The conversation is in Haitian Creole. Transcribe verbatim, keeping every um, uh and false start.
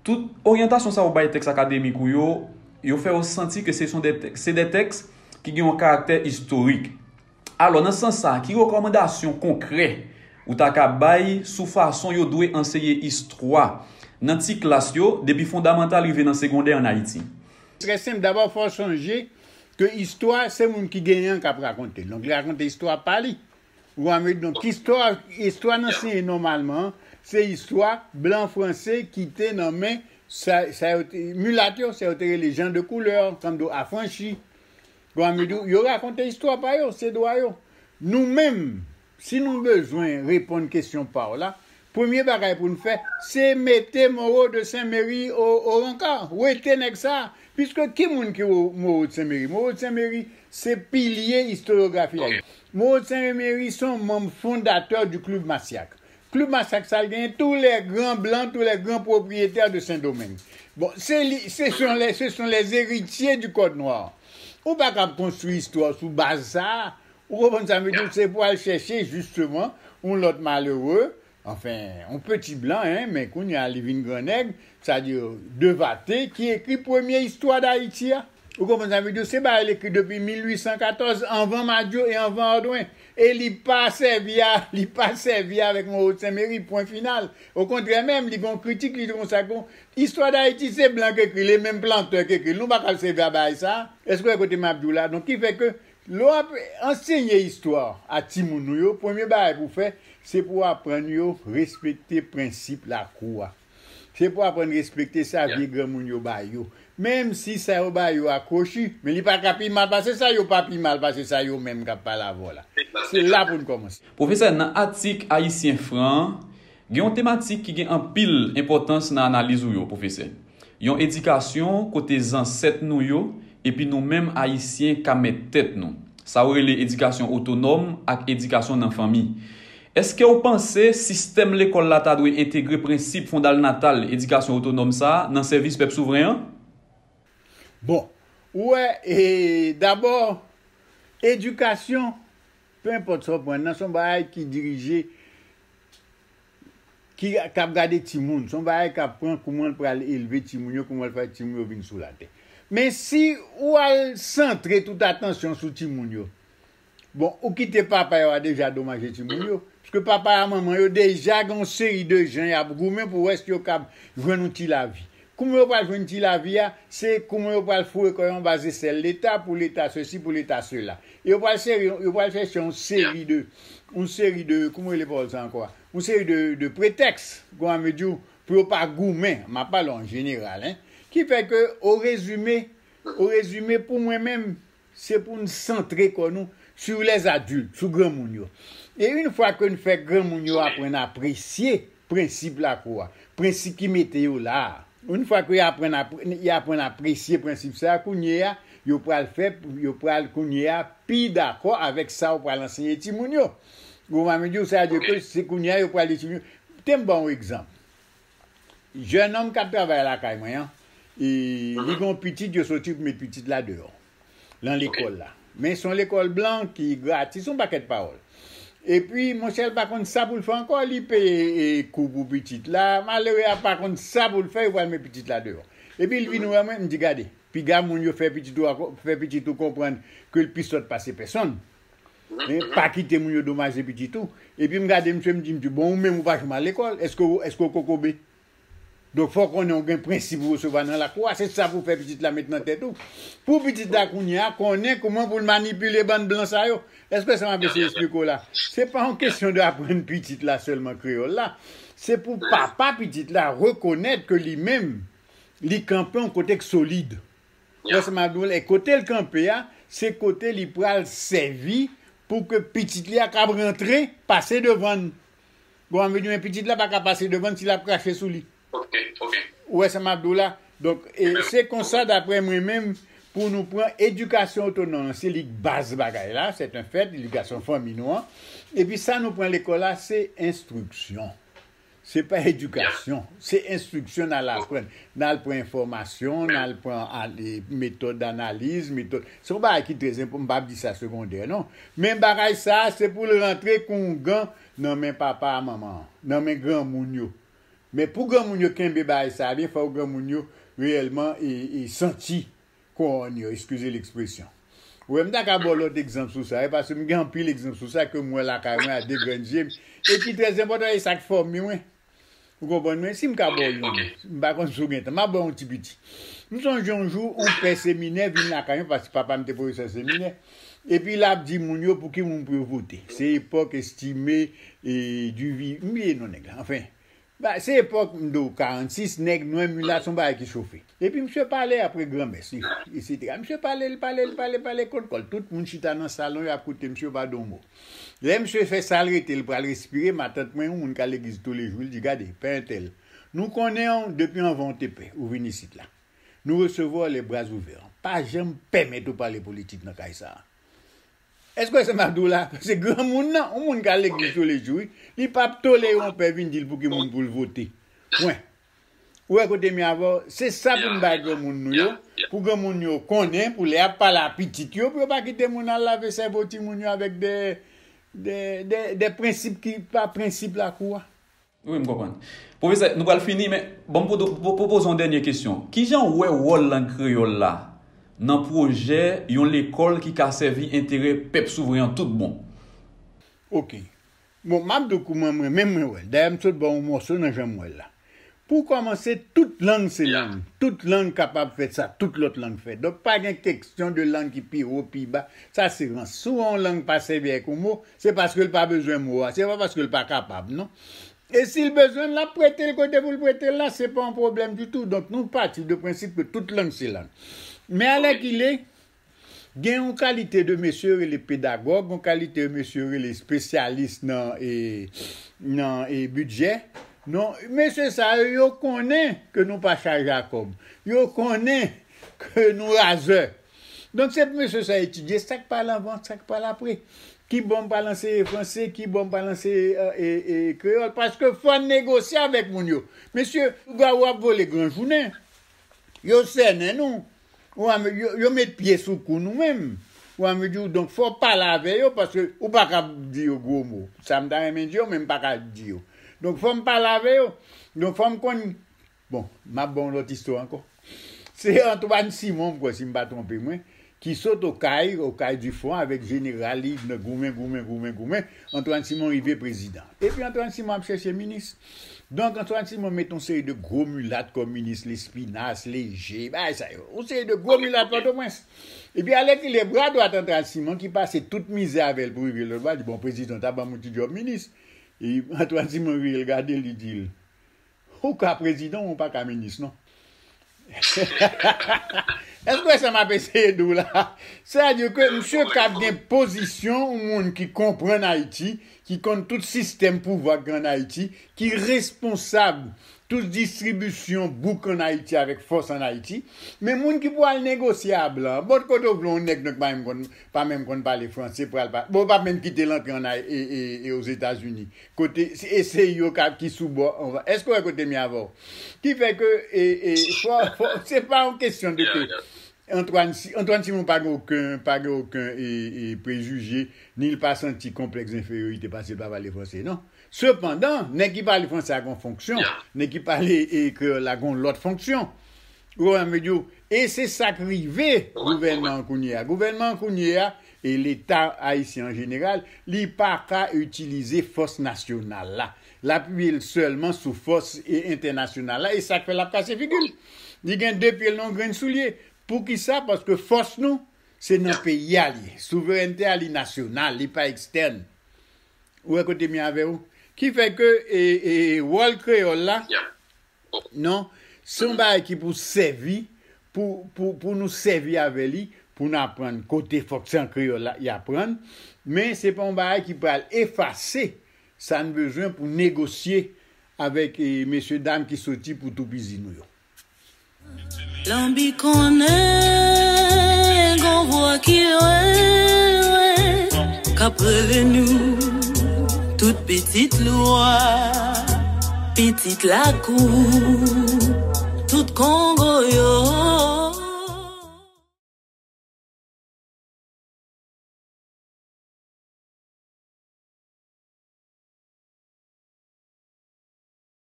Tout oryantasyon sa yo bay tèks akademik ou yo, yo fè w santi ke se son de tèks, se de tèks ki gen yon karaktè istorik. Alò, nan sans sa, ki rekòmandasyon konkrè ou ta ka bay sou fason yo dwe anseye istwa nan ti klas yo, depi fondamantal rive nan segondè ann Ayiti? Trè senp, dabò, fò w sonje ke istwa, se moun ki genyen an k ap rakonte l. Donk, li rakonte istwa pa li. Ou konprann? Donk, istwa, istwa n ansenye nòmalman, se istwa blan franse ki te nan men sa, sa yo te, milat yo, sa yo te rele jan de koulè, tankou afranchi. Ou konprann? Yo rakonte istwa pa yo, se dwa yo. Nou menm, si nou bezwen reponn kesyon pa w la, premye bagay pou n fè, se mete Moreau de Saint Méry o, o rankar. Wete nèg sa a. Piske ki moun ki Moreau de Saint Méry? Moreau de Saint Méry, se pilye istoryografi a. Moreau de Saint Méry se yon manm fondatè du Club Massiac. Club Massiac sa l genyen, tous les grands blancs, tous les grands propriétaires de Saint-Domingue. Bon, se li, ce sont les, ce sont les héritiers du Code Noir. Ou pa kab konstwi istwa sou baz sa a. Ou konprann sa m vle di w? Se pou al chèche, jisteman, yon lòt malere, anfen, yon peti blan, en, men kounye a li vin gran nèg, sa di, Devate, ki ekri premye istwa Dayiti a. Ou konprann sa m vle di w? Se bagay l ekri depi mil uit san katòz, anvan Madiou e anvan Odwen. E li pa sèvi a, li pa sèvi avèk Moreau de Saint Méry, pwen final. Okontrè menm, li gen yon kritik, li di konsa, kon, istwa Dayiti se blan k ekri l, e menm plantè k ekri l. Nou pa kab sèvi a bagay sa a. Èske w wè kote m ap di w la? Donk, ki fè ke lè w ap ansenye istwa a timoun ou yo, premye bagay pou w fè, se pou w aprann yo respekte prensip lakou a. Se pou aprann respekte sa vye granmoun yo ba yo. Menm si sa yo ba yo a kwochi, men li pa ka pi mal pase sa, yo pa pi mal pase sa yo menm k ap pale avè w la. Se la pou n kòmanse. Pwofesè, nan atik Ayisyen Fran an, gen yon tematik ki gen anpil enpòtans nan analiz ou yo, pwofesè. Yon edikasyon kote zansèt nou yo epi nou menm Ayisyen ka mèt tèt nou. Sa yo rele edikasyon otonòm ak edikasyon nan fanmi. Èske w panse sistèm lekòl la ta dwe entegre prensip fondalnatal edikasyon otonòm sa a nan sèvis pèp souvren an? Bon, ou wè, e, dabò, edikasyon, pe enpòt sa w pran nan, se yon bagay ki dirije, ki, k ap gade timoun. Se yon bagay k ap pran kouman l pral elve timoun yo, kouman l fè timoun yo vin sou latè. Men si ou al santre tout atansyon sou timoun yo, bon, ou kite papa yo a deja domaje timoun yo. Piske papa a manman yo deja gen yon seri de jan y ap goumen pou wè si yo kab jwenn yon ti lavi. Kouman yo pral jwenn ti lavi a, se kouman yo pral foure kò yo anba zesèl Leta, pou Leta sesi, pou Leta sela. E yo pral seri, yo pral chèche yon seri de, yon seri de, kouman yo rele pawòl sa ankò a? Yon seri de, de pretèks, kouman m vle di w, pou yo pa goumen. M ap pale an jeneral, en. Ki fè ke, o rezime, o rezime, pou mwen menm, se pou n santre kò nou sur les adultes, sou granmoun yo. E yon fwa ke n fè granmoun yo aprann apresye prensip lakou a, prensip ki mete yo la a, yon fwa ke y aprann apre-, y aprann apresye prensip sa a, kounye a, yo pral fè, yo pral kounye a pi dakò avèk sa ou pral ansenye timoun yo. Ou konprann m di w, sa vle di ke se kounye a yo pral di timoun yo. Te m ba w yon egzanp. Jennonm k ap travay lakay mwen an, e, li gen yon pitit, yo soti pou met pitit la deyò, nan lekòl la. Men se yon lekòl blan ki gratis, yon pakèt pawòl. Epi, monchè, l pa konn sa pou l fè ankò, li peye, e, kou pou pitit la, malere a pa konn sa pou l fè, yo pral met pitit la deyò. Epi, l vin wè mwen, m di, gade, piga moun yo fè pitit ou a, fè pitit ou konprann ke l pi sòt pase pèsonn. Men, pa kite moun yo domaje pitit ou. Epi m gade misye, m di, m di, bon, ou menm ou pa janm al lekòl, èske w, èske w kokobe? Donk, fò w konnen w gen prensip ou resevwa nan lakou a, se sa pou fè pitit la met nan tèt ou. Pou pitit la kounye a, konnen kouman pou l manipile bann blan sa yo. Èske sa m ap eseye eksplike w la? Se pa yon kesyon de aprann pitit la sèlman kreyòl la. Se pou papa pitit la rekonèt ke li menm, li kanpe yon kote k solid. Ou wè sa m ap di w la, e kote l kanpe a, se kote li pral sèvi pou ke pitit li a kab rantre, pase devan l. Bon, anvi di, men pitit la pa ka pase devan l si l ap krache sou li. Ou wè sa m ap di w la? Donk, e, se konsa, daprè mwen menm, pou nou pran edikasyon otonòm, se li k baz bagay la, c'est un fait, edikasyon fanmi nou an. Epi sa nou pran lekòl la, se enstriksyon. Se pa edikasyon, se enstriksyon n al aprann. N al pran enfòmasyon, n al pran, e, metòd analiz, metòd. Se yon bagay ki trè enpò-, m p ap di sa segondè, non. Men bagay sa a, se pou l rantre kon yon gan nan men papa a manman an, nan men granmoun yo. Men pou granmoun yo kenbe bagay sa a byen, fò granmoun yo reyèlman e, e santi kowòn yo, eskize lekspresyon. Ou wè, m ta ka ba w lòt egzanp sou sa, e paske m gen anpil egzanp sou sa ke m wè lakay mwen a de grenn je m, e ki trè enpòtan, e sa k fòme mwen. Ou konprann mwen? Si m ka ba w youn, m pa konn si w gen tan, m ap ba w yon ti piti. M sonje yon jou, yon pè seminè vin lakay mwen, paske papa m te pwofesè seminè. Epi l ap di moun yo pou ki moun pou yo vote. Se epòk Estimé e Duvivier, m bliye non nèg la. Anfen, ba, se epòk m di w karannsis, nèg nwè, milat, se yon bagay ki chofe. Epi misye pale apre granmès, li, etsetera. Misye pale, l pale, l pale, pale kot kò l. Tout moun chita nan salon, y ap koute misye, yo pa di yon mo. Lè misye fè sa l rete, l pral respire, matant mwen, yon moun k al legliz toulejou, li di, "Gade, pè entèl, nou konnen w depi anvan w te pè, ou vin isit la. Nou resevwa w les bras ouverts. Pa janm pèmèt ou pale politik nan kay sa a." Èske w wè sa m ap di w la? Se granmoun nan, yon moun k al legliz toulejou, wi. Li p ap tolere yon pè vin di l pou ki moun pou l vote. Pwen. Ou wè kote m ye avè w? Se sa pou n bay granmoun nou yo, pou granmoun yo konnen, pou lè y ap pale a pitit yo, pou yo pa kite moun al lave sèvo timoun yo avèk de, de, de, de prensip ki pa prensip lakou a. Wi, m konprann. Pwofesè, nou pral fini, men bon, m pou, pou, pwopoze yon dènye kesyon. Kijan w wè wòl lang kreyòl la nan pwojè yon lekòl ki ka sèvi enterè pèp souvren an tout bon? Oke. Bon, m ap di w kouman mwen menm mwen wè l. Dayè, m sot ba w yon mòso nan jan m wè l la. Pou kòmanse, tout lang se lang. Tout lang kapab fè sa tout lòt lang fè. Donk, pa gen keksyon de lang ki pi wo, pi ba. Sa se rans. Si w wè yon lang pa sèvi avèk yon mo, se paske l pa bezwen mo a. Se pa paske l pa kapab, non. E si l bezwen l, l ap prete l kote pou l prete l la, se pa yon pwoblèm ditou. Donk, nou pati de prensip ke tout lang se lang. Men alèkile, gen yon kalite de mesye yo rele pedagòg, yon kalite de mesye yo rele espesyalis nan, e, nan, e, bidjè. Non, mesye sa yo, yo konnen ke nou pa chaje a kòb. Yo konnen ke nou razè. Donk, se pou mesye sa etidye sa k pral anvan, sa k pral apre. Ki bò m pral anseye franse, ki bò m pral anseye, e, e, e, kreyòl. Paske fò n negosye avèk moun yo. Mesye, lougawou ap vole gran jounen. Yo sènen nou. Ou a, yo, yo met pye sou kou nou menm. Ou a, m di w, donk, fò w pale avè yo, paske ou pa ka di yo gwo mo. Sa m ta renmen di yo, men m pa ka di yo. Donk, fò m pale avè yo. Donk, fò m konn, bon, m ap ba w yon lòt istwa ankò. Se Antoine Simon, m kwè, si m pa twonpe mwen, ki sot Okay, Okay du Front, avèk jeneral li, nan goumen, goumen, goumen, goumen. Antoine Simon rive prezidan. Epi Antoine Simon ap chèche minis. Donk, Antoine Simon met yon seri de gwo milat kòm minis, Lespinasse, Léger, bagay sa yo. Yon seri de gwo milat Pòtoprens. Epi alèkile bra dwat Antoine Simon ki pase tout mizè avè l pou rive lòt bò, di, "Bon, prezidan, ta ban m yon ti djòb minis." E Antoine Simon vire l gade l, li di l, "Ou ka prezidan, ou pa ka minis, non." Èske w wè sa m ap eseye di w la? Sètadi ke misye ka gen pozisyon yon moun ki konprann Ayiti, ki konn tout sistèm pouvwa ki ann Ayiti, ki responsab tout distribisyon bouk ann Ayiti avèk fòs ann Ayiti. Men moun ki pou al negosye a blan, bòt kote w vle yon nèg non ki pa menm konn, pa menm konn pale franse, pral pa, bon, w p ap menm kite l antre ann Ay-, e, e, e Ozetazini. Kote, e se yo ka, ki sou bò anvan. Èske w wè kote m ye avè w? Ki fè ke, e, e, fò, fò, se pa yon kesyon de ke Antoine, Si-, Antoine Simon pa gen okenn, pa gen okenn, e, e, prejije, ni l pa santi konplèks enferiorite paske l pa pale franse, non. Sepandan, nèg ki pale franse a gen yon fonksyon, nèg ki pale, e, kreyòl la gen yon lòt fonksyon. Ou konprann, m di w, e se sa k rive gouvènman an kounye a. Gouvènman an kounye a, e Leta ayisyen an jeneral, li pa ka itilize fòs nasyonal la. L apiye l sèlman sou fòs, e, entènasyonal la, e sa k fè l ap kase figi l. Li gen de pye l nan yon grenn soulye. Poukisa? Paske fòs nou, se nan peyi a li ye. Souverènte a li nasyonal, li pa ekstèn. Ou wè kote m ye avè w? Ki fè ke, e, e, wòl kreyòl la, non, se yon bagay ki pou sèvi, pou, pou, pou nou sèvi avè li, pou n aprann kote fòk se an kreyòl la, y aprann. Men se pa yon bagay ki pral efase sa n bezwen pou negosye avèk, e, mesye dam ki soti pou toupizi nou yo. Lanbi konnen gon vwa ki lwen, lwen, k ap rele nou, tout pitit lwa, pitit lakou, tout Kongo yo.